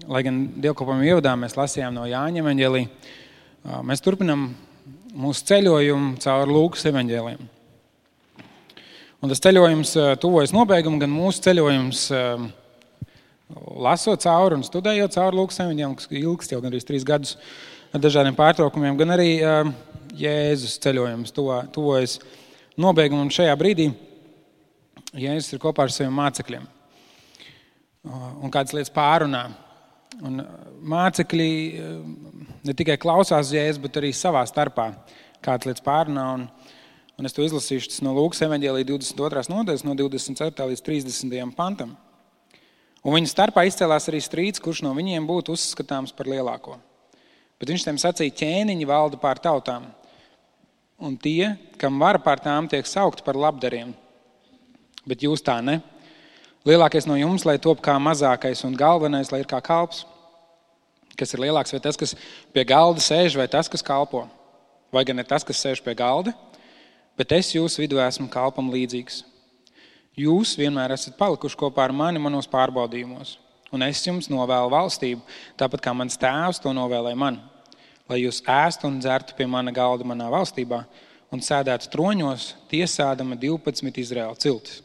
lai gan dievkalpojuma ievadā mēs lasījām no Jāņa evaņģēlija, mēs turpinām mūsu ceļojumu caur Lūkas evaņģēliem. Un tas ceļojums tuvojas nobeigumu, gan mūsu ceļojums lasot cauri un studējot cauri Lūkas evaņģēliem, kas ilgst jau gandrīz 3 gadus ar dažādiem pārtraukumiem, gan arī Jēzus ceļojums tuvojas nobeigumu. Un šajā brīdī Jēzus ir kopā ar saviem mācekļiem un kādas lietas pārunā. Un mācekļi ne tikai klausās Jēzus, bet arī savā starpā kādas lietas pārunā. Un es to izlasīšu, tas no Lūkas evaņģēlija 22. nodaļas, no 24. līdz 30. pantam. Un viņa starpā izcēlās arī strīds, kurš no viņiem būtu uzskatāms par lielāko. Bet viņš tiem sacīja, ķēniņi valda pār tautām, un tie, kam vara pār tām, tiek saukti par labdariem. Bet jūs tā ne. Lielākais no jums, lai top kā mazākais, un galvenais, lai ir kā kalps. Kas ir lielāks, vai tas, kas pie galda sēž, vai tas, kas kalpo? Vai gan ne tas, kas sēž pie galda? Bet es jūsu vidū esmu kalpam līdzīgs. Jūs vienmēr esat palikuši kopā ar mani manos pārbaudījumos, un es jums novēlu valstību, tāpat kā mans tēvs to novēlēja man, lai jūs ēstu un dzertu pie mana galda manā valstībā un sēdētu troņos, tiesādama 12 Izraēla ciltis.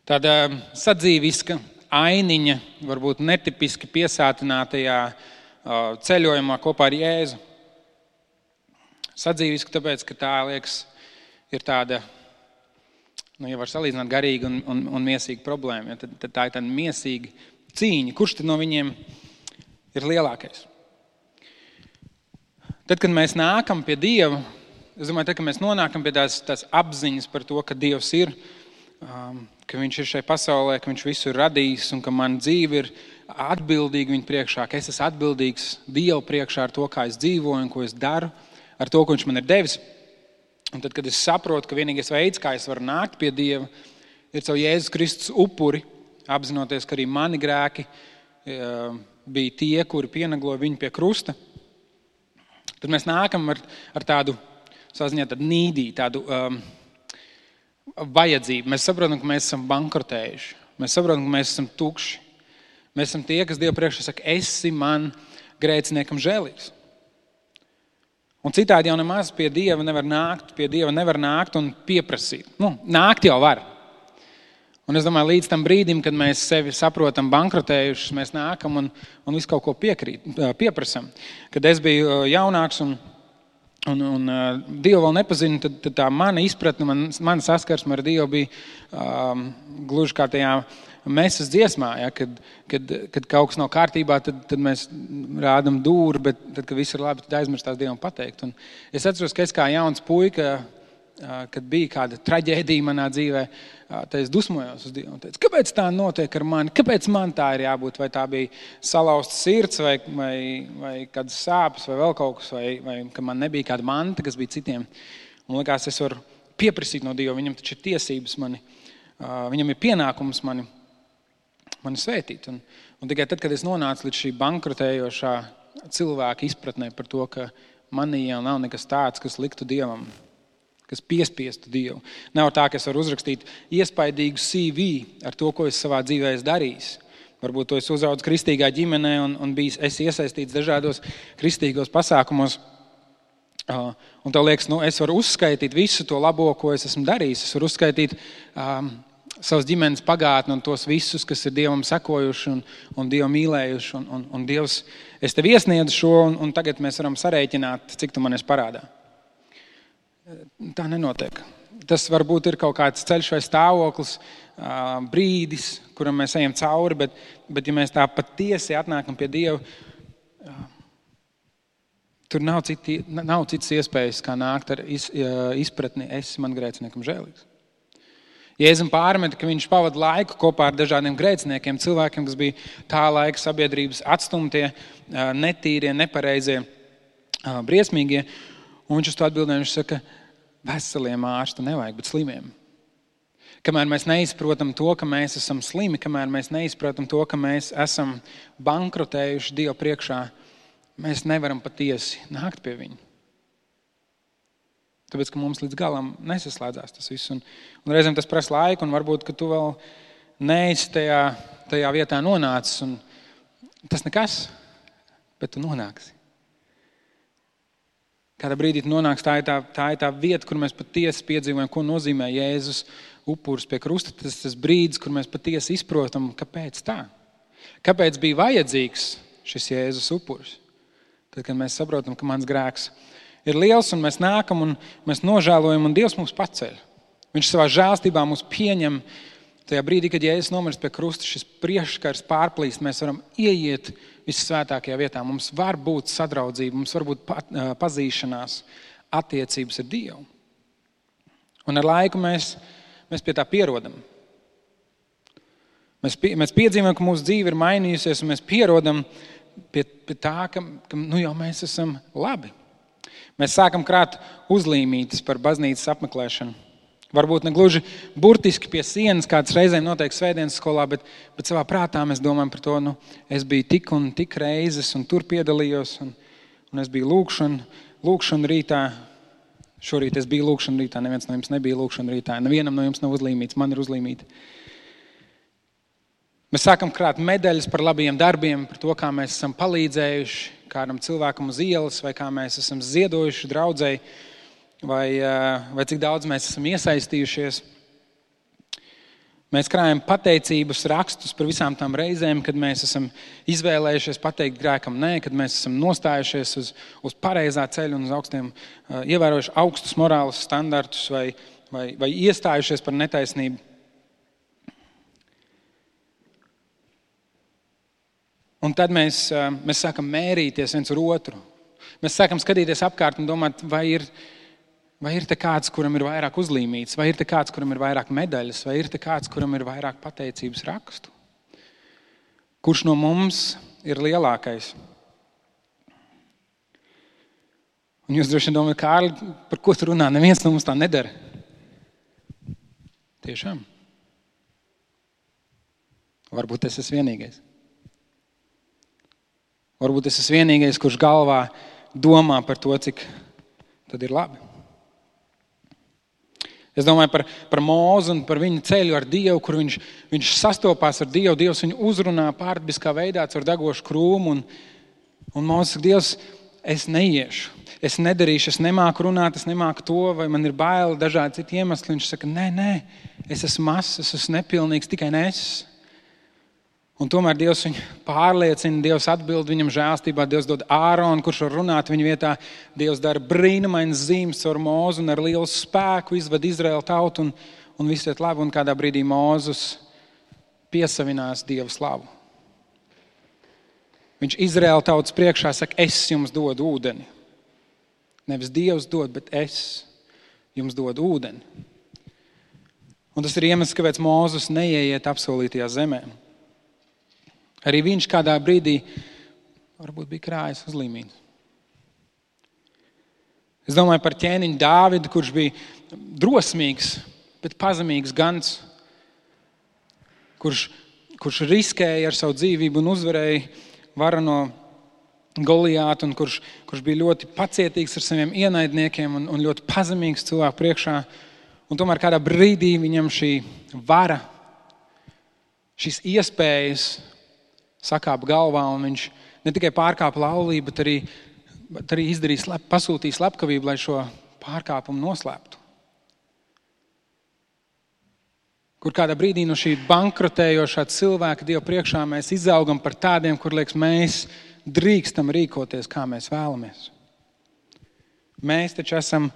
Tāda sadzīviska ainiņa, varbūt netipiski piesātinātajā ceļojumā kopā ar Jēzu. Sadzīviska tāpēc, ka tā, liekas, ir tāda, ja var salīdzināt garīga un miesīga problēma, tad tā ir tāda miesīga cīņa. Kurš tad no viņiem ir lielākais? Tad, kad mēs nākam pie Dieva, es domāju, tad, kad mēs nonākam pie tās apziņas par to, ka Dievs ir, ka viņš ir šai pasaulē, ka viņš visu ir radījis un ka man dzīve ir atbildīga viņa priekšā, ka es esmu atbildīgs Dievu priekšā ar to, kā es dzīvoju un ko es daru, ar to, ko viņš man ir devis. Un tad, kad es saprotu, ka vienīgais veids, kā es varu nākt pie Dieva, ir caur Jēzus Kristus upuri, apzinoties, ka arī mani grēki bija tie, kuri pienagloja viņu pie krusta, tad mēs nākam ar tādu, savā ziņā, tādu nīdī, tādu vajadzību. Mēs saprotam, ka mēs esam bankrotējuši. Mēs saprotam, ka mēs esam tukši. Mēs esam tie, kas Dievu priekšā saka, esi man grēciniekam žēlīgs. Un citādi jau nemaz pie Dieva nevar nākt un pieprasīt. Nākt jau var. Un es domāju, līdz tam brīdim, kad mēs sevi saprotam bankrotējušus, mēs nākam un visu kaut ko pieprasam. Kad es biju jaunāks un Dievu vēl nepazinu, tad tā mana izpratne, mana saskarsme ar Dievu bija gluži kā tajā mesas dziesmā, ja, kad kaut kas nav kārtībā, tad mēs rādam dūri, bet tad, kad viss ir labi, tad aizmirstās Dievam pateikt. Un es atceros, ka es kā jauns puika, kad bija kāda traģēdija manā dzīvē, tad es dusmojos uz Dievu un teicu, kāpēc tā notiek ar mani, kāpēc man tā ir jābūt, vai tā bija salauzta sirds, vai kādas sāpes, vai vēl kaut kas, vai ka man nebija kāda manta, kas bija citiem. Un likās, es varu pieprasīt no Dieva, viņam taču ir tiesības viņam ir pienākums mani svētīt. Un tikai tad, kad es nonācu līdz šī bankrotējošā cilvēka izpratnē par to, ka manī jau nav nekas tāds, kas liktu Dievam, kas piespiestu Dievu. Nav tā, ka es varu uzrakstīt iespaidīgu CV ar to, ko es savā dzīvē esmu darījis. Varbūt to es uzaudzis kristīgā ģimenē un es iesaistīts dažādos kristīgos pasākumos. Un tev liekas, es varu uzskaitīt visu to labo, ko es esmu darījis. Es varu uzskaitīt savas ģimenes pagātni un tos visus, kas ir Dievam sekojuši un Dievu mīlējuši. Un Dievs, es tev iesniedzu šo un tagad mēs varam sarēķināt, cik tu man esi parādā. Tā nenotiek. Tas varbūt ir kaut kāds ceļš vai stāvoklis, brīdis, kuram mēs ejam cauri, bet ja mēs tā patiesi atnākam pie Dieva, tur nav citas iespējas, kā nākt ar izpratni, esi man grēciniekam žēlīgs. Jēzum pārmeta, ka viņš pavada laiku kopā ar dažādiem grēciniekiem, cilvēkiem, kas bija tā laika sabiedrības atstumtie, netīrie, nepareizie, briesmīgie. Un viņš uz to atbildēja, viņš saka, veseliem ārstu nevajag, bet slimiem. Kamēr mēs neizprotam to, ka mēs esam slimi, kamēr mēs neizprotam to, ka mēs esam bankrotējuši Dievu priekšā, mēs nevaram patiesi nākt pie viņa. Tāpēc, ka mums līdz galam nesaslēdzās tas viss. Un reizēm tas prasa laiku, un varbūt, ka tu vēl neesi tajā tajā vietā nonācis. Un tas nekas, bet tu nonāksi. Kādā brīdī tu nonāks, tā ir tā vieta, kur mēs patiesi piedzīvojam, ko nozīmē Jēzus upuris pie krusta. Tas brīdis, kur mēs patiesi izprotam, kāpēc tā. Kāpēc bija vajadzīgs šis Jēzus upuris? Tad, kad mēs saprotam, ka mans grēks ir liels un mēs nākam un mēs nožēlojam un Dievs mūs paceļ. Viņš savā žēlstībā mūs pieņem. Tajā brīdī, kad Jēzus nomirst pie krusta, šis priekškars pārplīst, mēs varam ieiet vissvētākajā vietā. Mums var būt sadraudzība, mums var būt pazīšanās, attiecības ar Dievu. Un ar laiku mēs pie tā pierodam. Mēs piedzīvojam, ka mūsu dzīve ir mainījusies, un mēs pierodam pie tā, ka jau mēs esam labi. Mēs sākam krāt uzlīmītes par baznīcas apmeklēšanu. Varbūt ne gluži burtiski pie sienas, kāds reizēm notiek svētdienas skolā, bet savā prātā mēs domājam par to, es biju tik un tik reizes, un tur piedalījos, un es biju lūkšana rītā. Šorīt es biju lūkšana rītā, neviens no jums nebija lūkšana rītā, nevienam no jums nav uzlīmīts, man ir uzlīmīta. Mēs sākam krāt medaļas par labiem darbiem, par to, kā mēs esam palīdzējuši kādam cilvēkam uz ielas, vai kā mēs esam ziedojuši draudzei, vai cik daudz mēs esam iesaistījušies. Mēs krājam pateicības rakstus par visām tām reizēm, kad mēs esam izvēlējušies pateikt grēkam nē, kad mēs esam nostājušies uz pareizā ceļa un uz augstiem, ievērojuši augstus morāles standartus vai iestājušies par netaisnību. Un tad mēs sākam mērīties viens ar otru. Mēs sākam skatīties apkārt un domāt, vai ir te kāds, kuram ir vairāk uzlīmīts, vai ir te kāds, kuram ir vairāk medaļas, vai ir te kāds, kuram ir vairāk pateicības rakstu. Kurš no mums ir lielākais? Un jūs droši vien domājat, Kārli, par ko tu runā? Neviens no mums tā nedara. Tiešām. Varbūt es esmu vienīgais. Varbūt es esmu vienīgais, kurš galvā domā par to, cik tad ir labi. Es domāju par Mūzu un par viņa ceļu ar Dievu, kur viņš sastopās ar Dievu. Dievs viņu uzrunā pārdabiskā veidā caur degošu krūmu. Un Mūzes saka, Dievs, es neiešu, es nedarīšu, es nemāku runāt, es nemāku to, vai man ir baili, dažādi citi iemesli. Viņš saka, nē, es esmu mazs, es esmu nepilnīgs, tikai ne es. Un tomēr Dievs viņu pārliecina, Dievs atbild viņam žēlstībā, Dievs dod Āronu, kurš var runāt viņa vietā. Dievs dara brīnumainas zīmes caur Mūzu un ar lielu spēku izved Izraēlu tautu un viss iet labi. Un kādā brīdī Mūzus piesavinās Dievu slavu. Viņš Izraēlu tautas priekšā saka, es jums dodu ūdeni. Nevis Dievs dod, bet es jums dodu ūdeni. Un tas ir iemesls, kāpēc Mūzus neieiet apsolītajā zemē. Arī viņš kādā brīdī varbūt bija krājis uzlīmīts. Es domāju par ķēniņu Dāvidu, kurš bija drosmīgs, bet pazemīgs gans, kurš riskēja ar savu dzīvību un uzvarēja varano Golijātu, un kurš bija ļoti pacietīgs ar saviem ienaidniekiem un ļoti pazemīgs cilvēku priekšā. Un tomēr kādā brīdī viņam šī vara, šīs iespējas sakāpa galvā, un viņš ne tikai pārkāpa laulību, bet arī pasūtīja slepkavību, lai šo pārkāpumu noslēptu. Kur kādā brīdī no šī bankrotējošā cilvēka Dieva priekšā mēs izaugam par tādiem, kur liekas, mēs drīkstam rīkoties, kā mēs vēlamies. Mēs taču esam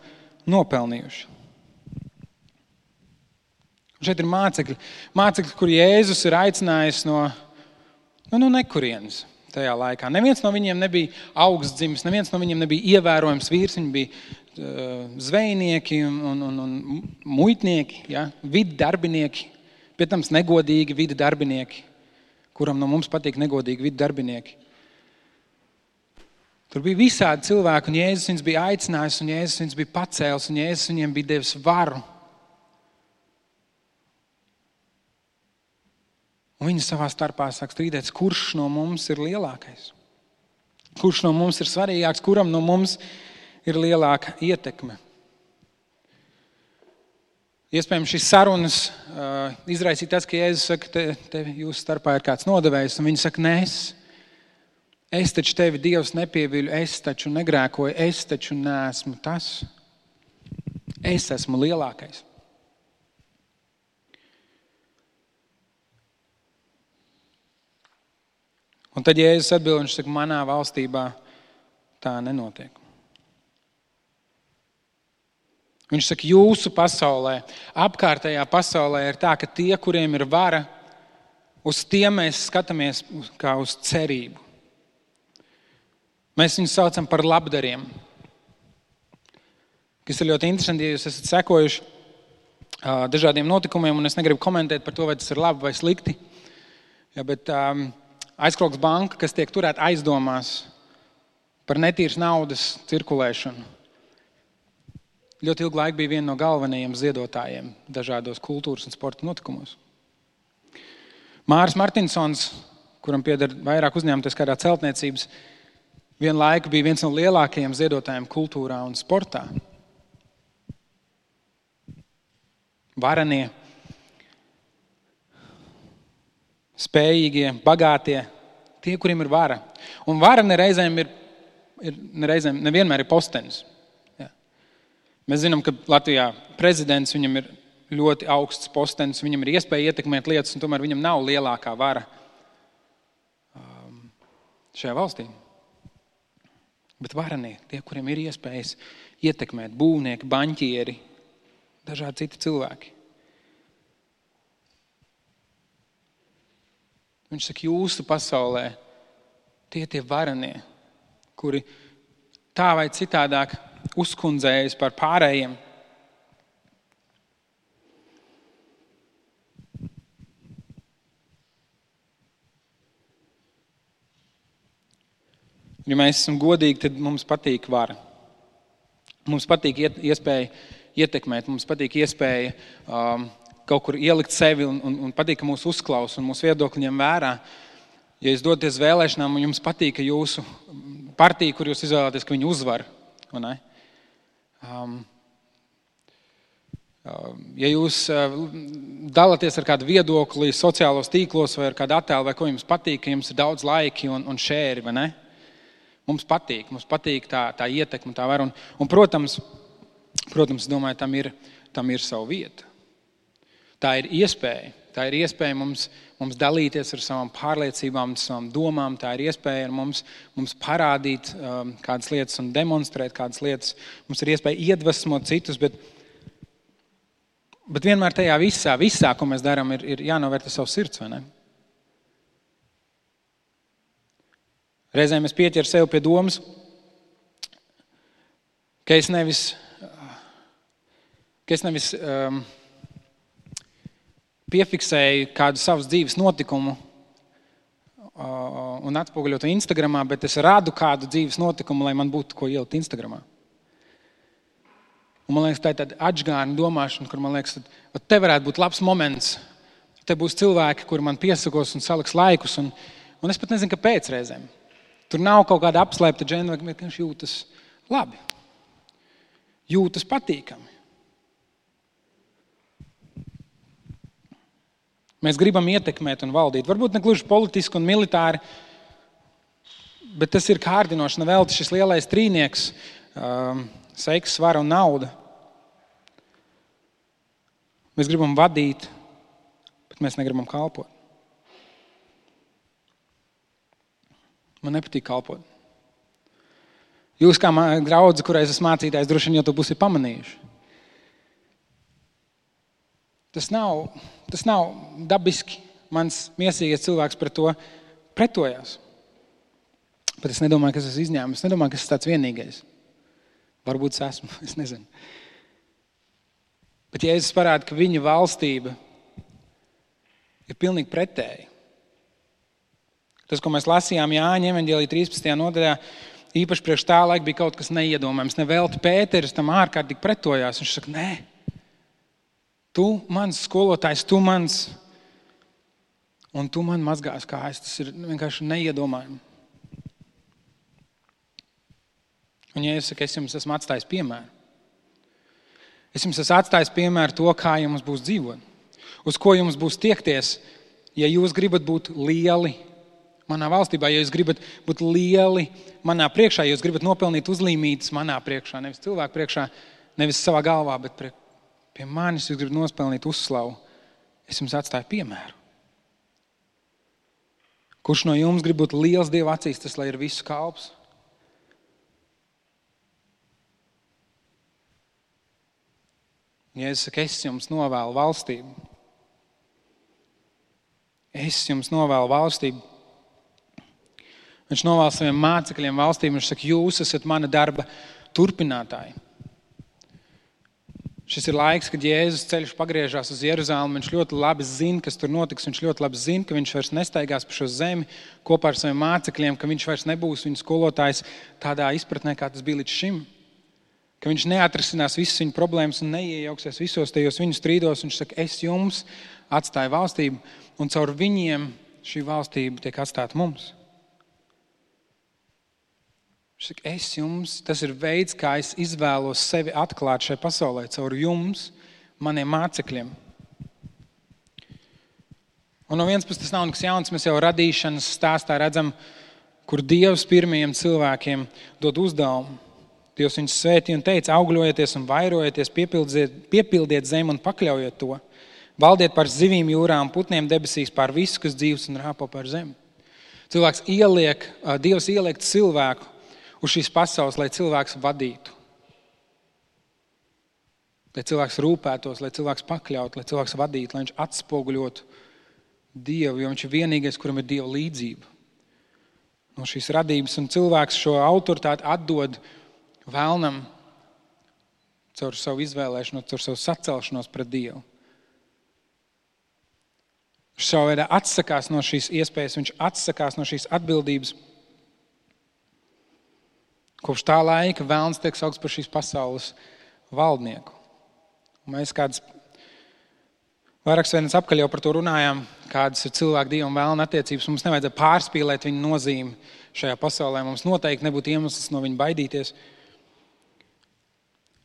nopelnījuši. Un šeit ir mācekļi, kur Jēzus ir aicinājis no nekurienes tajā laikā. Neviens no viņiem nebija augstdzimis, neviens no viņiem nebija ievērojams vīrs, viņi bija zvejnieki un muitnieki, ja? Vidi darbinieki, pie tam negodīgi vidi darbinieki, kuram no mums patīk negodīgi vidi darbinieki. Tur bija visādi cilvēki, un Jēzus viņus bija aicinājis, un Jēzus viņus bija pacēlis, un Jēzus viņiem bija devis varu. Un viņi savā starpā sāk strīdēties, kurš no mums ir lielākais? Kurš no mums ir svarīgāks? Kuram no mums ir lielāka ietekme? Iespējams, šīs sarunas izraisīja tas, ka Jēzus saka, te jūsu starpā ir kāds nodevējs, un viņi saka, nē, es taču tevi Dievs nepieviļu, es taču negrēkoju, es taču neesmu tas. Es esmu lielākais. Un tad Jēzus atbild, viņš saka, manā valstībā tā nenotiek. Viņš saka, jūsu pasaulē, apkārtējā pasaulē ir tā, ka tie, kuriem ir vara, uz tiem mēs skatāmies kā uz cerību. Mēs viņus saucam par labdariem. Kas ir ļoti interesanti, ja jūs esat sekojuši dažādiem notikumiem, un es negribu komentēt par to, vai tas ir labi vai slikti. Ja, bet Aizkrogs banka, kas tiek turēta aizdomās par netīras naudas cirkulēšanu, ļoti ilgu laiku bija viena no galvenajiem ziedotājiem dažādos kultūras un sporta notikumos. Māris Martinsons, kuram pieder vairāk uzņēmuties kādā celtniecības, vienu laiku bija viens no lielākajiem ziedotājiem kultūrā un sportā. Varenie, spējīgie, bagātie, tie, kuriem ir vara. Un vara nevienmēr ir postenis. Ja. Mēs zinām, ka Latvijā prezidents, viņam ir ļoti augsts postenis, viņam ir iespēja ietekmēt lietas, un tomēr viņam nav lielākā vara šajā valstī. Bet varanie, tie, kuriem ir iespējas ietekmēt, būvnieki, baņķieri, dažādi citi cilvēki. Viņš saka, jūsu pasaulē tie varanie, kuri tā vai citādāk uzkundzējas par pārējiem. Ja mēs esam godīgi, tad mums patīk vara. Mums patīk iespēja ietekmēt, mums patīk iespēja kaut kur ielikt sevi un patīk, ka mūs uzklaus un mūsu viedokļi ņem vērā. Ja jūs doties vēlēšanām un jums patīk, ka jūsu partija, kur jūs izvēlaties, ka viņi uzvar, vai ne? Ja jūs dalāties ar kādu viedokli sociālos tīklos vai ar kādu attēlu, vai ko jums patīk, ka jums ir daudz laiki un šēri, vai ne? Mums patīk tā ietekme, tā vara. Un protams, es domāju, tam ir savu vietu. Tā ir iespēja mums dalīties ar savām pārliecībām, savām domām. Tā ir iespēja ar mums parādīt kādas lietas un demonstrēt kādas lietas. Mums ir iespēja iedvesmot citus, bet vienmēr tajā visā, ko mēs darām, ir jānovērtē savs sirds, vai ne? Reizēm es pieķeru sev pie domas, ka es nevis piefiksēju kādu savas dzīves notikumu un atspoguļotu Instagramā, bet es rādu kādu dzīves notikumu, lai man būtu ko ielikt Instagramā. Un man liekas, tā ir tāda atžgārna domāšana, kur man liekas, te varētu būt labs moments. Te būs cilvēki, kuri man piesakos un saliks laikus, un es pat nezinu, kāpēc reizēm. Tur nav kaut kāda apslēpta džena, bet viņš jūtas labi. Jūtas patīkami. Mēs gribam ietekmēt un valdīt. Varbūt ne gluži politiski un militāri, bet tas ir kārdinoši. Nevelti šis lielais trīnieks, seks, svara un nauda. Mēs gribam vadīt, bet mēs negribam kalpot. Man nepatīk kalpot. Jūs kā draudze, kurai es esmu mācītājs, droši vien jau to būsiet pamanījuši. Tas nav dabiski. Mans miesīgais cilvēks pret to pretojās. Bet es nedomāju, ka es esmu izņēmis. Es nedomāju, ka es esmu tāds vienīgais. Varbūt es esmu, es nezinu. Bet Jēzus parāda, ka viņa valstība ir pilnīgi pretēji. Tas, ko mēs lasījām Jāņa evaņģēlija 13. nodaļā, īpaši priekš tā laika bija kaut kas neiedomājams. Nevelti Pēteris tam ārkārtīgi pretojās. Viņš saka, nē, tu mans skolotājs, tu mans, un tu man mazgās kājas. Tas ir vienkārši neiedomājami. Un Jēzus saka, es jums esmu atstājis piemēru. Es jums esmu atstājis piemēru to, kā jums būs dzīvot. Uz ko jums būs tiekties, ja jūs gribat būt lieli manā valstībā, ja jūs gribat būt lieli manā priekšā, ja jūs gribat nopelnīt uzlīmītas manā priekšā, nevis cilvēku priekšā, nevis savā galvā, bet pie manis jūs gribat nospelnīt uzslavu. Es jums atstāju piemēru. Kurš no jums grib būt liels Dieva acīs, tas lai ir visu kalps? Jēzus saka, es jums novēlu valstību. Es jums novēlu valstību. Viņš novēl saviem mācekļiem valstību. Viņš saka, jūs esat mana darba turpinātāji. Šis ir laiks, kad Jēzus ceļš pagriežās uz Jeruzalemi. Viņš ļoti labi zina, kas tur notiks. Viņš ļoti labi zina, ka viņš vairs nestaigās pa šo zemi kopā ar saviem mācekļiem, ka viņš vairs nebūs viņu skolotājs tādā izpratnē, kā tas bija līdz šim. Ka viņš neatrisinās visas viņu problēmas un neiejauksies visos tajos viņu strīdos. Viņš saka, es jums atstāju valstību, un caur viņiem šī valstība tiek atstāta mums. Viņš saka, es jums, tas ir veids, kā es izvēlos sevi atklāt šai pasaulē, caur jums, maniem mācekļiem. Un no vienas puses tas nav nekas jauns, mēs jau radīšanas stāstā redzam, kur Dievs pirmajiem cilvēkiem dod uzdevumu. Dievs viņus svētīja un teica, augļojieties un vairojieties, piepildiet zemi un pakļaujiet to. Valdiet par zivīm jūrā un putniem debesīs, pār visu, kas dzīvs un rāpo par zemi. Dievs ieliek cilvēku uz šīs pasaules, lai cilvēks vadītu. Lai cilvēks rūpētos, lai cilvēks pakļautu, lai cilvēks vadītu, lai viņš atspoguļotu Dievu, jo viņš ir vienīgais, kuram ir Dieva līdzība. No šīs radības un cilvēks šo autoritāti atdod vēlnam caur savu izvēlēšanos, caur savu sacelšanos pret Dievu. Viņš savā veidā atsakās no šīs iespējas, viņš atsakās no šīs atbildības. Kopš tā laika vēlns tiek saukts par šīs pasaules valdnieku. Un mēs kādas vairākas vienas apkaļ jau par to runājām, kādas ir cilvēku Dieva un vēlna attiecības. Mums nevajadzētu pārspīlēt viņa nozīmi šajā pasaulē. Mums noteikti nebūtu iemesls no viņa baidīties.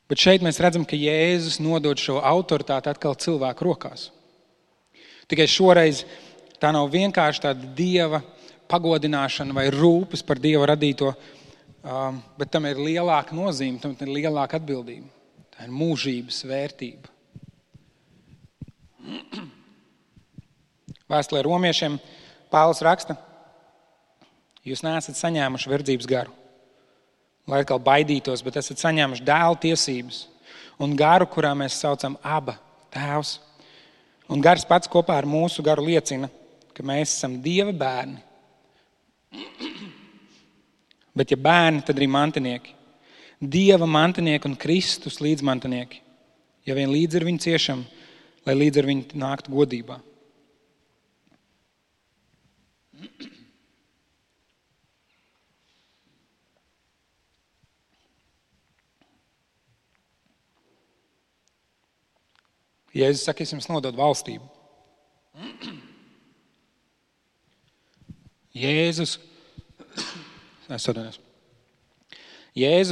Bet šeit mēs redzam, ka Jēzus nodod šo autoritāti atkal cilvēku rokās. Tikai šoreiz tā nav vienkārši tāda Dieva pagodināšana vai rūpes par Dieva radīto, bet tam ir lielāka nozīme, tam ir lielāka atbildība. Tā ir mūžības vērtība. Vēstulē romiešiem Pāvils raksta, jūs neesat saņēmuši verdzības garu, lai atkal baidītos, bet esat saņēmuši dēla tiesības un garu, kurā mēs saucam Aba, Tēvs. Un gars pats kopā ar mūsu garu liecina, ka mēs esam Dieva bērni. Bet ja bērni, tad arī mantinieki. Dieva mantinieki un Kristus līdzmantinieki. Ja vien līdz ar viņu ciešam, lai līdz ar viņu nāktu godībā. Jēzus saka, es jums nododu valstību. Jēzus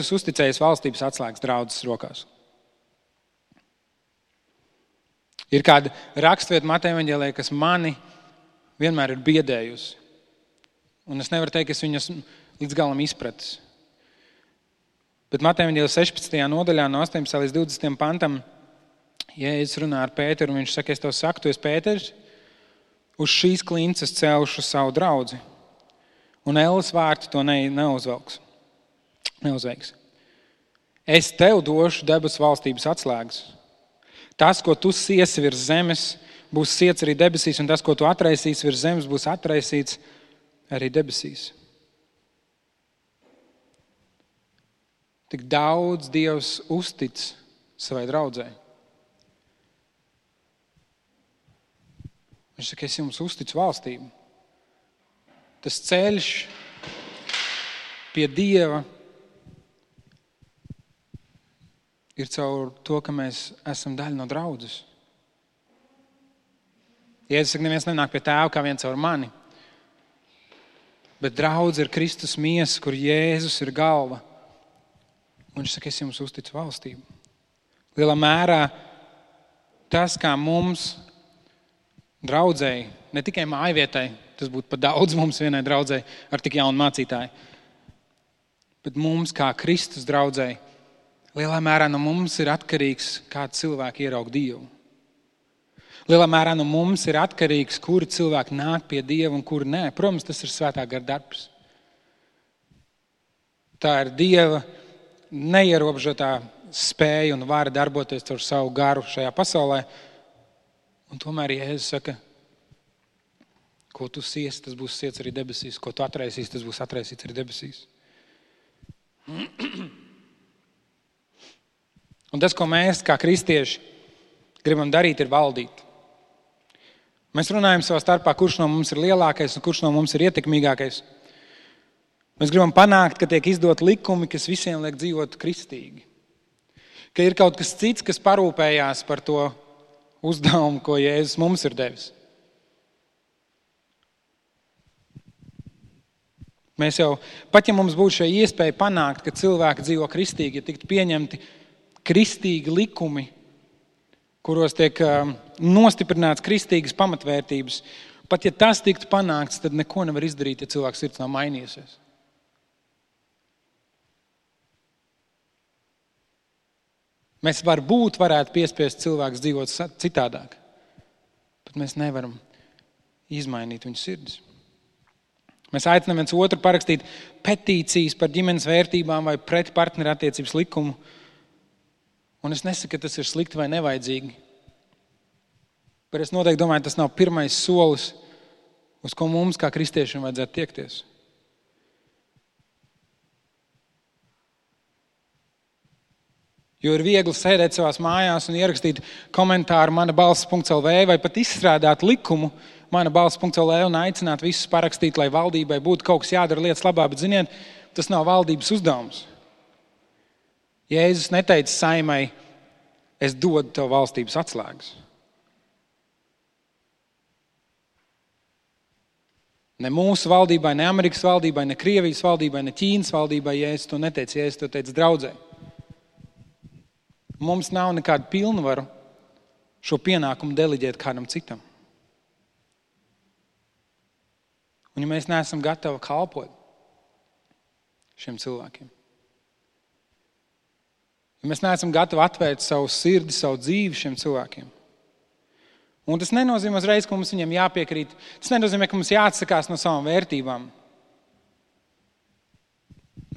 uzticējas valstības atslēgas draudzes rokās. Ir kāda rakstvieta Mateja evaņģēlijā, kas mani vienmēr ir biedējusi. Un es nevaru teikt, ka es viņas līdz galam izpratis. Bet Mateja evaņģēlijā 16. nodaļā no 18. līdz 20. pantam Jēzus runā ar Pēteru, un viņš saka, es tev saku, tu esi Pēters, uz šīs klinces celšu savu draudzi, un elles vārti to neuzveiks. Es tev došu debesu valstības atslēgas. Tas, ko tu siesi virs zemes, būs siets arī debesīs, un tas, ko tu atraisīsi virs zemes, būs atraisīts arī debesīs. Tik daudz Dievs uztic savai draudzei. Viņš saka, es jums uzticu valstību. Tas ceļš pie Dieva ir caur to, ka mēs esam daļa no draudzes. Jēzus saka, neviens nenāk pie Tēva kā viens caur mani. Bet draudze ir Kristus miesa, kur Jēzus ir galva. Un viņš saka, es jums uzticu valstību. Lielā mērā tas, kā mums draudzēji, ne tikai mājvietai, tas būtu pat daudz mums vienai draudzēji ar tik jaunu mācītāju, bet mums kā Kristus draudzēji, lielā mērā no mums ir atkarīgs, kā cilvēki ieraug Dievu. Lielā mērā no mums ir atkarīgs, kuri cilvēki nāk pie Dieva un kuri nē. Protams, tas ir svētā gara darbs. Tā ir Dieva neierobežotā spēja un vara darboties caur savu garu šajā pasaulē. Un tomēr Jēzus saka, ko tu siesi, tas būs siets arī debesīs. Ko tu atraisīsi, tas būs atraisīts arī debesīs. Un tas, ko mēs kā kristieši gribam darīt, ir valdīt. Mēs runājam savā starpā, kurš no mums ir lielākais un kurš no mums ir ietekmīgākais. Mēs gribam panākt, ka tiek izdot likumi, kas visiem liek dzīvot kristīgi. Ka ir kaut kas cits, kas parūpējās par to uzdevumu, ko Jēzus mums ir devis. Mēs jau, pat ja mums būtu šī iespēja panākt, ka cilvēki dzīvo kristīgi, ja tiktu pieņemti kristīgi likumi, kuros tiek nostiprināts kristīgas pamatvērtības, pat ja tas tiktu panākts, tad neko nevar izdarīt, ja cilvēks sirds nav mainījusies. Mēs varētu piespiest cilvēkus dzīvot citādāk, bet mēs nevaram izmainīt viņu sirdis. Mēs aicinām viens otru parakstīt petīcijas par ģimenes vērtībām vai pret partnerattiecības likumu. Un es nesaku, ka tas ir slikti vai nevajadzīgi. Bet es noteikti domāju, tas nav pirmais solis, uz ko mums kā kristiešiem vajadzētu tiekties. Jo ir viegli sēdēt savās mājās un ierakstīt komentāru manabalss.lv vai pat izstrādāt likumu manabalss.lv un aicināt visus parakstīt, lai valdībai būtu kaut kas jādara lietas labā, bet ziniet, tas nav valdības uzdevums. Jēzus neteica saimai, es dodu tev valstības atslēgas. Ne mūsu valdībai, ne Amerikas valdībai, ne Krievijas valdībai, ne Ķīnas valdībai Jēzus to neteica. Jēzus to teica draudzē. Mums nav nekādu pilnvaru šo pienākumu deleģēt kādam citam. Un ja mēs neesam gatavi kalpot šiem cilvēkiem, ja mēs neesam gatavi atvērt savu sirdi, savu dzīvi šiem cilvēkiem. Un tas nenozīmē uzreiz, ka mums viņiem jāpiekrīt. Tas nenozīmē, ka mums jāatsakās no savām vērtībām.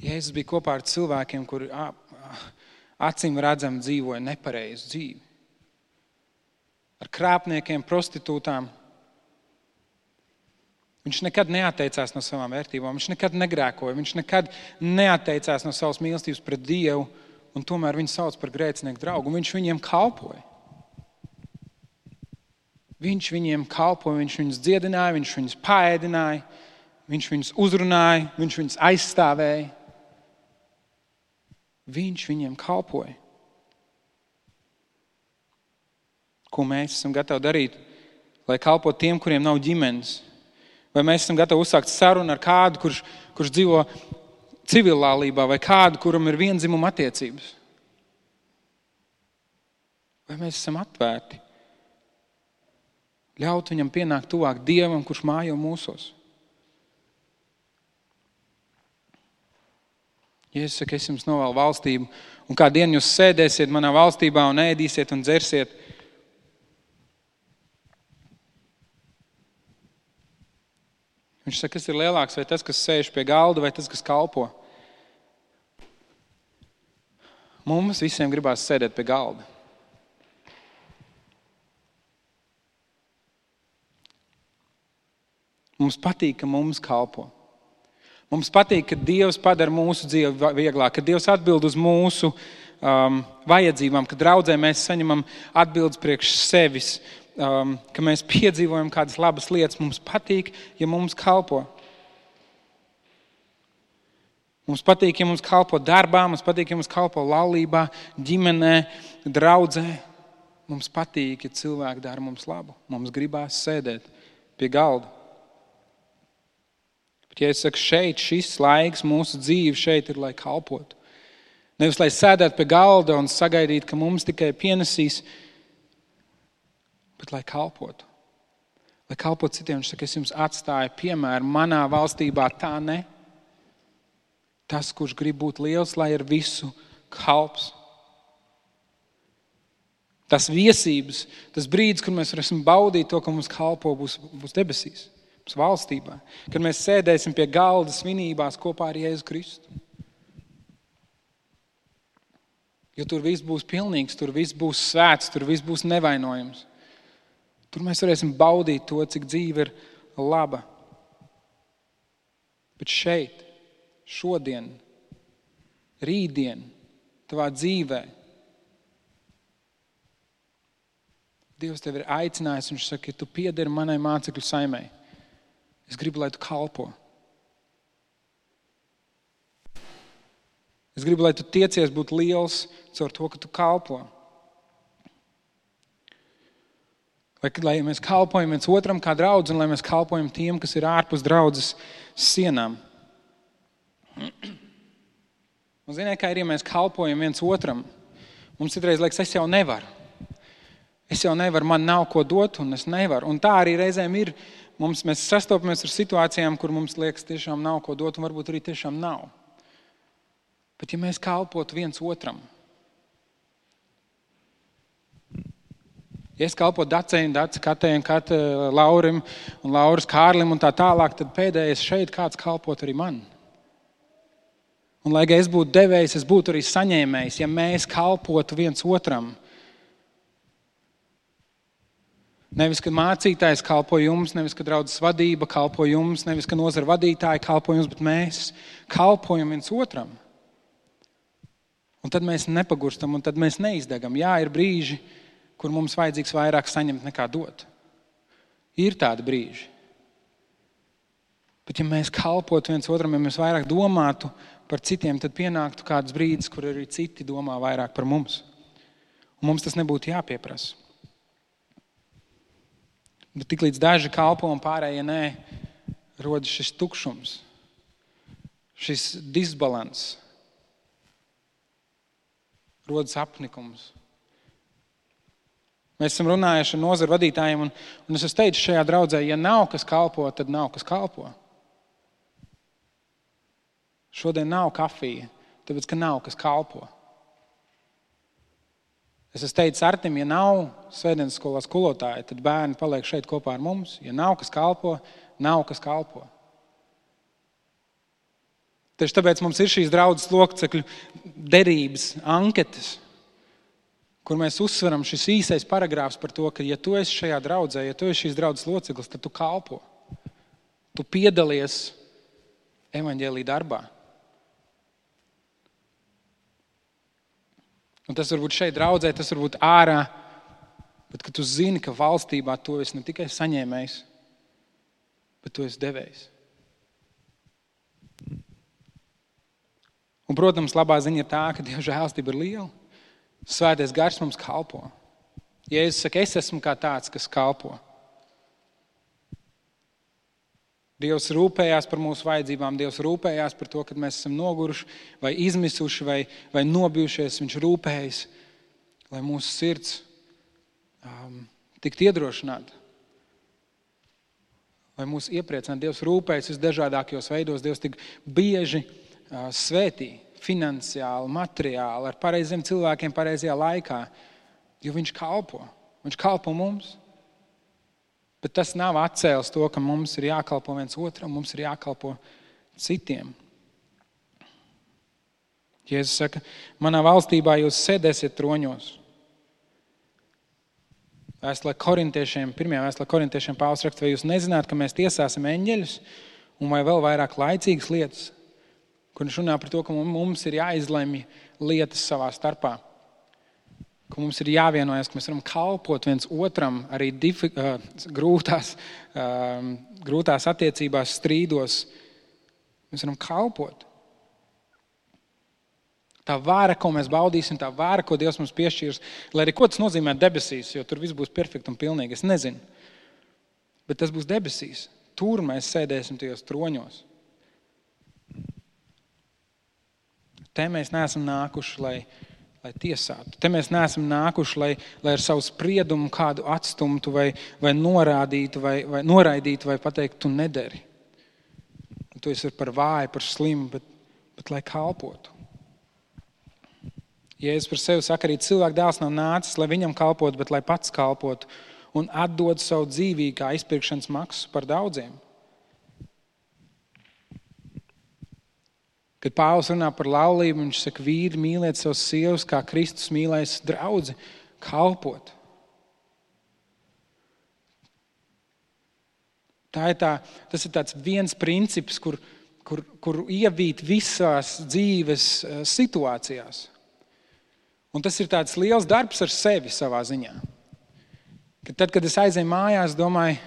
Jēzus bija kopā ar cilvēkiem, kuri acīm redzam dzīvoja nepareizu dzīvi. Ar krāpniekiem, prostitūtām. Viņš nekad neatteicās no savām vērtībām. Viņš nekad negrēkoja. Viņš nekad neatteicās no savas mīlestības pret Dievu. Un tomēr viņu sauc par grēcinieku draugu. Viņš viņiem kalpoja. Viņš viņiem kalpoja, viņš viņus dziedināja, viņš viņus paēdināja, viņš viņus uzrunāja, viņš viņus aizstāvēja. Viņš viņiem kalpoja. Ko mēs esam gatavi darīt, lai kalpotu tiem, kuriem nav ģimenes? Vai mēs esam gatavi uzsākt sarunu ar kādu, kurš dzīvo civillālībā, vai kādu, kuram ir vienzimuma attiecības? Vai mēs esam atvērti? Ļaut viņam pienākt tuvāk Dievam, kurš mājo mūsos. Jēzus saka, es jums novēlu valstību, un kā dienu jūs sēdēsiet manā valstībā un ēdīsiet un dzersiet. Viņš saka, kas ir lielāks, vai tas, kas sēž pie galda, vai tas, kas kalpo? Mums visiem gribās sēdēt pie galda. Mums patīk, ka mums kalpo. Mums patīk, ka Dievs padara mūsu dzīvi vieglāk, ka Dievs atbild uz mūsu vajadzībām, ka draudzē mēs saņemam atbildes priekš sevis, ka mēs piedzīvojam kādas labas lietas. Mums patīk, ja mums kalpo. Mums patīk, ja mums kalpo darbā, mums patīk, ja mums kalpo laulībā, ģimenē, draudzē. Mums patīk, ja cilvēki dara mums labu. Mums gribās sēdēt pie galda. Bet, ja es saku, šeit šis laiks, mūsu dzīve šeit ir, lai kalpotu. Nevis, lai sēdētu pie galda un sagaidītu, ka mums tikai pienesīs, bet lai kalpotu. Lai kalpotu citiem, viņš saka, es jums atstāju piemēru, manā valstībā tā ne. Tas, kurš grib būt liels, lai ir visu kalps. Tas viesības, tas brīdis, kur mēs varēsim baudīt to, ka mums kalpo, būs debesīs, būs valstībā. Kad mēs sēdēsim pie galda svinībās kopā ar Jēzu Kristu. Jo tur viss būs pilnīgs, tur viss būs svēts, tur viss būs nevainojams. Tur mēs varēsim baudīt to, cik dzīve ir laba. Bet šeit, šodien, rītdien, tavā dzīvē, Dievs tevi ir aicinājis, un viņš saka, ja tu piederi manai mācekļu saimei, es gribu, lai tu kalpo. Es gribu, lai tu tiecies būt liels caur to, ka tu kalpo. Lai mēs kalpojam viens otram kā draudz, un lai mēs kalpojam tiem, kas ir ārpus draudzes sienām. Un ziniet, kā ir, ja mēs kalpojam viens otram, mums citreiz liekas, es jau nevaru. Es jau nevaru, man nav ko dot, un es nevaru. Un tā arī reizēm ir. Mēs sastopamies ar situācijām, kur mums liekas, tiešām nav ko dot, un varbūt arī tiešām nav. Bet ja mēs kalpotu viens otram, ja es kalpotu Dacei un Dace, Katei un Kate, Laurim un Lauras Kārlim un tā tālāk, tad pēdējais šeit kāds kalpot arī man. Un lai es būtu devējs, es būtu arī saņēmējs, ja mēs kalpotu viens otram. Nevis, ka mācītājs kalpo jums, nevis, ka draudzes vadība kalpo jums, nevis, ka nozara vadītāji kalpo jums, bet mēs kalpojam viens otram. Un tad mēs nepagurstam, un tad mēs neizdegam. Jā, ir brīži, kur mums vajadzīgs vairāk saņemt nekā dot. Ir tādi brīži. Bet ja mēs kalpotu viens otram, ja mēs vairāk domātu par citiem, tad pienāktu kāds brīdis, kur arī citi domā vairāk par mums. Un mums tas nebūtu jāpieprasa. Bet tiklīdz daži kalpo un pārējie nē, rodas šis tukšums, šis disbalans, rodas apnikums. Mēs esam runājuši ar nozaru vadītājiem, un es esmu teicis šajā draudzē, ja nav kas kalpo, tad nav kas kalpo. Šodien nav kafija, tāpēc, ka nav kas kalpo. Es esmu teicis Artim, ja nav svētdienas skolā skolotāja, tad bērni paliek šeit kopā ar mums. Ja nav kas kalpo, nav kas kalpo. Tieši tāpēc mums ir šīs draudzes locekļu derības, anketas, kur mēs uzsveram šis īsais paragrāfs par to, ka ja tu esi šajā draudzē, ja tu esi šīs draudzes loceklis, tad tu kalpo. Tu piedalies evaņģēlī darbā. Un tas varbūt šeit draudzē, tas varbūt ārā, bet ka tu zini, ka valstībā tu esi ne tikai saņēmējs, bet tu esi devējs. Un, protams, labā ziņa ir tā, ka Dieva žēlstība ir liela. Svētais gars mums kalpo. Jēzus saka, es esmu kā tāds, kas kalpo. Dievs rūpējās par mūsu vajadzībām, Dievs rūpējās par to, kad mēs esam noguruši vai izmisuši vai nobijušies. Viņš rūpējas, lai mūsu sirds tiktu iedrošināta. Lai mūs iepriecinātu. Dievs rūpējas visdažādākajos veidos. Dievs tik bieži svētī finansiāli, materiāli, ar pareiziem cilvēkiem pareizajā laikā, jo viņš kalpo. Viņš kalpo mums. Bet tas nav atcēlis to, ka mums ir jākalpo viens otram, mums ir jākalpo citiem. Jēzus saka, manā valstībā jūs sēdēsiet troņos. Vēstulē korintiešiem, pirmajā vēstulē korintiešiem Pāvils raksta, vai jūs nezināt, ka mēs tiesāsim eņģeļus un vai vēl vairāk laicīgas lietas, kur viņš runā par to, ka mums ir jāizlemj lietas savā starpā. Ka mums ir jāvienojas, ka mēs varam kalpot viens otram arī grūtās attiecībās, strīdos. Mēs varam kalpot. Tā vāra, ko mēs baudīsim, tā vāra, ko Dievs mums piešķīrs, lai arī ko tas nozīmē debesīs, jo tur viss būs perfekti un pilnīgi, es nezinu. Bet tas būs debesīs. Tur mēs sēdēsim tajos troņos. Te mēs neesam nākuši, lai tiesātu. Te mēs neesam nākuši, lai ar savu spriedumu kādu atstumtu vai norādītu vai noraidītu vai pateiktu, tu nederi. Tu esi par vāju, par slimu, bet lai kalpotu. Jēzus par sevi saka, arī cilvēka dēls nav nācis, lai viņam kalpotu, bet lai pats kalpotu un atdod savu dzīvību kā izpirkšanas maksu par daudziem. Kad Pāvils runā par laulību, viņš saka, vīri mīliet savus sievas, kā Kristus mīlēs draudzi, kalpot. Tas ir tāds viens princips, kur ievīt visās dzīves situācijās. Un tas ir tāds liels darbs ar sevi savā ziņā. Tad, kad es aizēju mājās, domāju,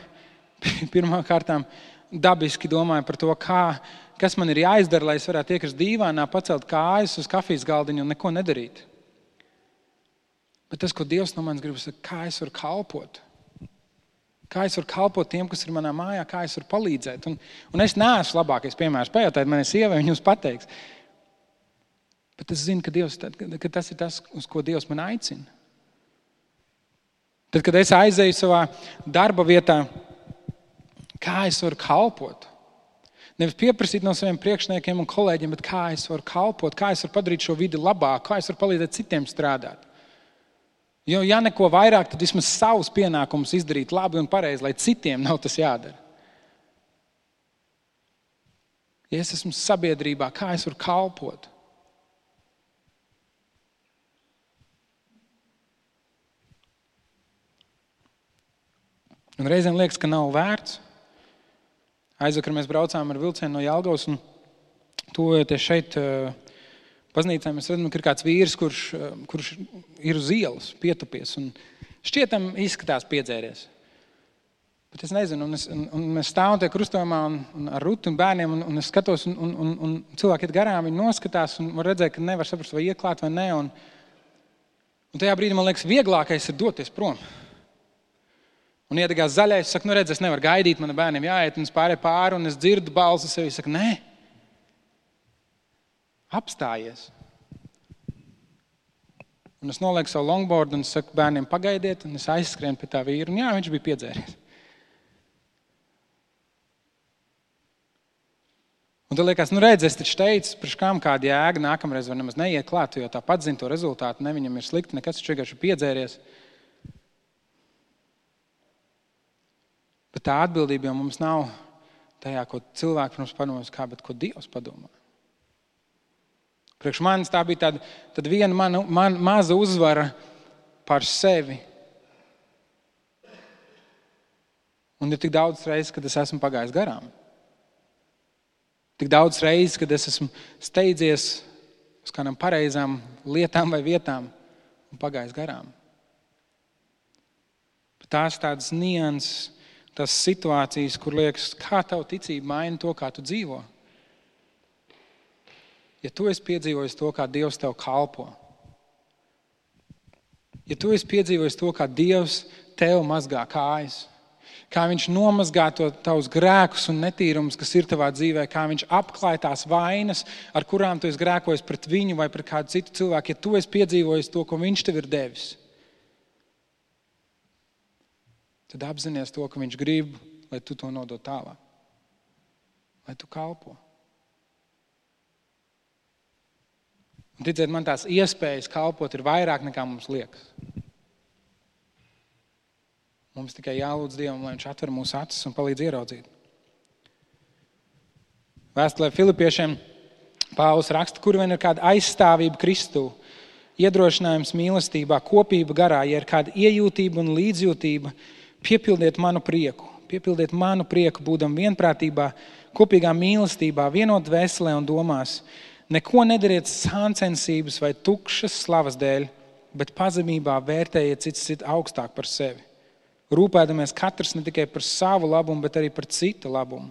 pirmā kārtām dabiski domāju par to, kas man ir jāizdara, lai es varētu iekrist dīvānā, pacelt kājas uz kafijas galdiņu un neko nedarīt. Bet tas, ko Dievs no manis grib, ir, kā es varu kalpot. Kā es varu kalpot tiem, kas ir manā mājā, kā es varu palīdzēt. Un es neesmu labākais piemērs. Pajautājiet manai sievai, viņa jums pateiks. Bet es zinu, ka tas ir tas, uz ko Dievs man aicina. Tad, kad es aizēju savā darba vietā, kā es varu kalpot? Nevis pieprasīt no saviem priekšniekiem un kolēģiem, bet kā es varu kalpot, kā es varu padarīt šo vidi labāku, kā es varu palīdzēt citiem strādāt. Jo, ja neko vairāk, tad vismaz savus pienākumus izdarīt labi un pareizi, lai citiem nav tas jādara. Ja es esmu sabiedrībā, kā es varu kalpot? Un reizēm liekas, ka nav vērts. Aizvakar mēs braucām ar vilcienu no Jelgavas un tuvojoties šeit baznīcā, mēs redzam, ka ir kāds vīrs, kurš ir uz ielas pietupies un šķietam izskatās piedzēries. Bet es nezinu, un mēs stāvam tie krustojumā un ar Rutu un bērniem un es skatos un cilvēki iet garām, viņi noskatās un var redzēt, ka nevar saprast, vai ieklāt vai ne. Un tajā brīdī man liekas, vieglākais ir doties prom. Un iedegās zaļais, es saku, redz, es nevaru gaidīt, man bērniem jāiet, un es pārēju pāri, un es dzirdu balsi sevi, es saku, nē, apstājies. Un es nolieku savu longboardu, un es saku, bērniem pagaidiet, un es aizskrienu pie tā vīru, un jā, viņš bija piedzēries. Un tad liekas, redz, es taču teicu, priekš kām kāda jēga, nākamreiz var nemaz neiet klāt, jo tāpat zina to rezultātu, ne viņam ir slikti, nekas taču vienkārši piedzēries. Bet tā atbildība jau mums nav tajā, ko cilvēki pirms padomās, bet ko Dievs padomā. Priekš manis tā bija tāda viena man maza uzvara par sevi. Un ir tik daudz reizes, kad es esmu pagājis garām. Tik daudz reizes, kad es esmu steidzies uz kādām pareizām lietām vai vietām un pagājis garām. Bet tās tādas nianses, tās situācijas, kur liekas, kā tavu ticība maina to, kā tu dzīvo. Ja tu esi piedzīvojis to, kā Dievs tev kalpo, ja tu esi piedzīvojis to, kā Dievs tev mazgā kājas, kā viņš nomazgā tavus grēkus un netīrumus, kas ir tavā dzīvē, kā viņš apklāj tās vainas, ar kurām tu esi grēkojis pret viņu vai pret kādu citu cilvēku, ja tu esi piedzīvojis to, ko viņš tev ir devis, tad apzinies to, ka viņš grib, lai tu to nodod tālāk. Lai tu kalpo. Un ticiet, man tās iespējas kalpot ir vairāk nekā mums liekas. Mums tikai jālūdz Dievam, lai viņš atver mūsu acis un palīdz ieraudzīt. Vēstulē Filipiešiem Pāvils raksta, kur vien ir kāda aizstāvība Kristū, iedrošinājums mīlestībā, kopība garā, ja ir kāda iejūtība un līdzjūtība, piepildiet manu prieku, būdam vienprātībā, kopīgā mīlestībā, vienot dvēselē un domās. Neko nedariet sāncensības vai tukšas slavas dēļ, bet pazemībā vērtējiet citu augstāk par sevi. Rūpēdamies katrs ne tikai par savu labumu, bet arī par citu labumu.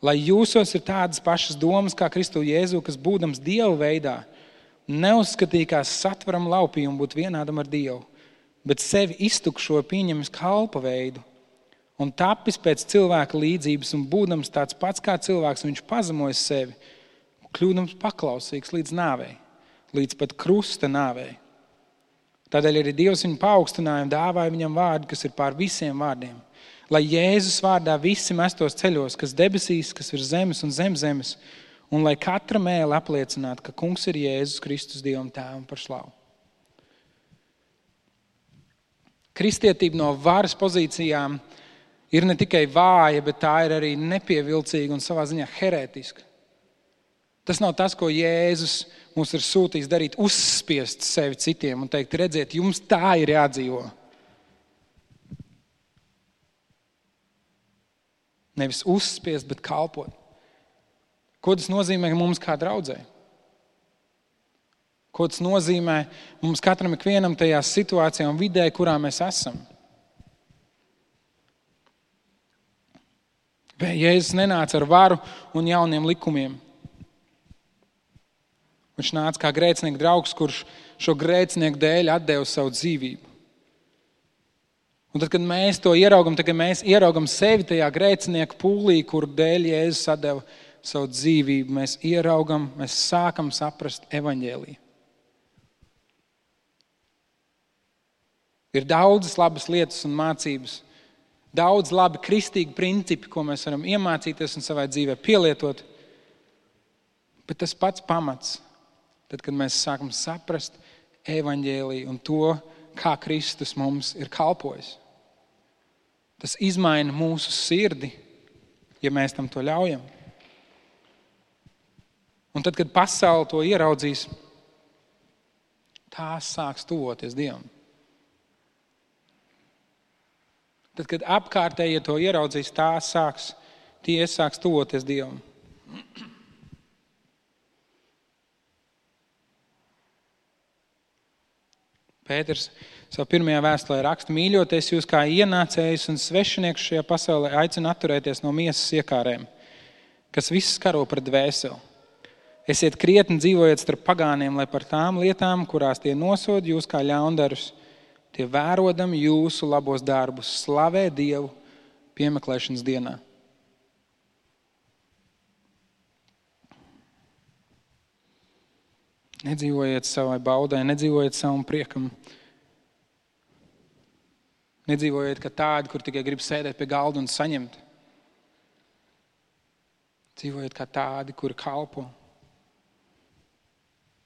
Lai jūsos ir tādas pašas domas kā Kristu Jēzu, kas būdams Dieva veidā, neuzskatīja kā satveram laupījumu būt vienādam ar Dievu, bet sevi iztukšoja pieņemis kalpa veidu un tapis pēc cilvēka līdzības un būdams tāds pats kā cilvēks, viņš pazemoja sevi, kļūdams paklausīgs līdz nāvei, līdz pat krusta nāvei. Tādēļ arī Dievs viņu paaugstināja un dāvāja viņam vārdu, kas ir pār visiem vārdiem. Lai Jēzus vārdā visi mestos ceļos, kas debesīs, kas ir zemes un zem zemes, un lai katra mēle apliecinātu, ka Kungs ir Jēzus Kristus Dievam Tēvam par slavu. Kristietība no varas pozīcijām ir ne tikai vāja, bet tā ir arī nepievilcīga un savā ziņā herētiska. Tas nav tas, ko Jēzus mums ir sūtījis darīt, uzspiest sevi citiem un teikt, redziet, jums tā ir jādzīvo. Nevis uzspiest, bet kalpot. Ko tas nozīmē mums kā draudzē? Ko tas nozīmē mums katram ikvienam tajā situācijā un vidē, kurā mēs esam? Jēzus nenāca ar varu un jauniem likumiem. Viņš nāca kā grēcinieku draugs, kurš šo grēcinieku dēļ atdeva savu dzīvību. Un tad, kad mēs to ieraugam, tad, kad mēs ieraugam sevi tajā grēcinieku pūlī, kur dēļ Jēzus atdeva savu dzīvību, mēs ieraugam, mēs sākam saprast evaņģēliju. Ir daudzas labas lietas un mācības, daudz labi kristīgi principi, ko mēs varam iemācīties un savai dzīvē pielietot. Bet tas pats pamats, tad, kad mēs sākam saprast evaņģēliju un to, kā Kristus mums ir kalpojis. Tas izmaina mūsu sirdi, ja mēs tam to ļaujam. Un tad, kad pasaule to ieraudzīs, tās sāks tuvoties Dievam. Tad, kad apkārtējie to ieraudzīs, tie sāks tuvoties Dievam. Pēters savā pirmajā vēstulē raksta, mīļoties jūs kā ienācējus un svešinieks šajā pasaulē aicina atturēties no miesas iekārēm, kas viss karo pret dvēseli. Esiet krietni dzīvojiet starp pagāniem, lai par tām lietām, kurās tie nosod jūs kā ļaundarus, tie vērodam jūsu labos darbus, slavē Dievu piemeklēšanas dienā. Nedzīvojiet savai baudai, nedzīvojiet savam priekam. Nedzīvojiet kā tādi, kur tikai grib sēdēt pie galda un saņemt. Dzīvojiet kā tādi, kuri kalpo.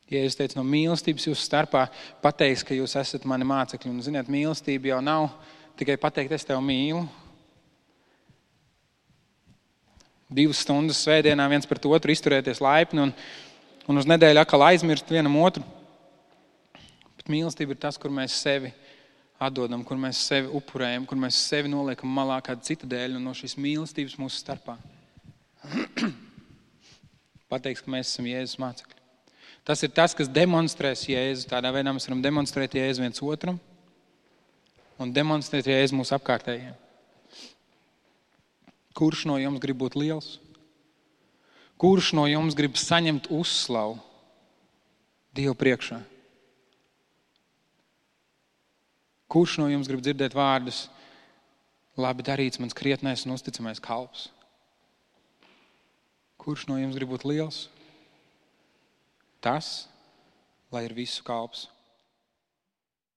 Jēzus teica, no mīlestības jūsu starpā pateiks, ka jūs esat mani mācekļi. Un, ziniet, mīlestība jau nav tikai pateikt, es tevi mīlu. 2 stundas svētdienā viens pret otru izturēties laipni un uz nedēļu atkal aizmirst vienam otru. Bet mīlestība ir tas, kur mēs sevi atdodam, kur mēs sevi upurējam, kur mēs sevi noliekam malā kāda cita dēļ un no šīs mīlestības mūsu starpā. Pateiks, ka mēs esam Jēzus mācekļi. Tas ir tas, kas demonstrēs Jēzu. Tādā veidā mēs varam demonstrēt Jēzu viens otram un demonstrēt Jēzu mūsu apkārtējiem. Kurš no jums grib būt liels? Kurš no jums grib saņemt uzslavu Dievu priekšā? Kurš no jums grib dzirdēt vārdus, labi darīts mans krietnais un uzticamais kalps? Kurš no jums grib būt liels? Tas, lai ir visu kalps.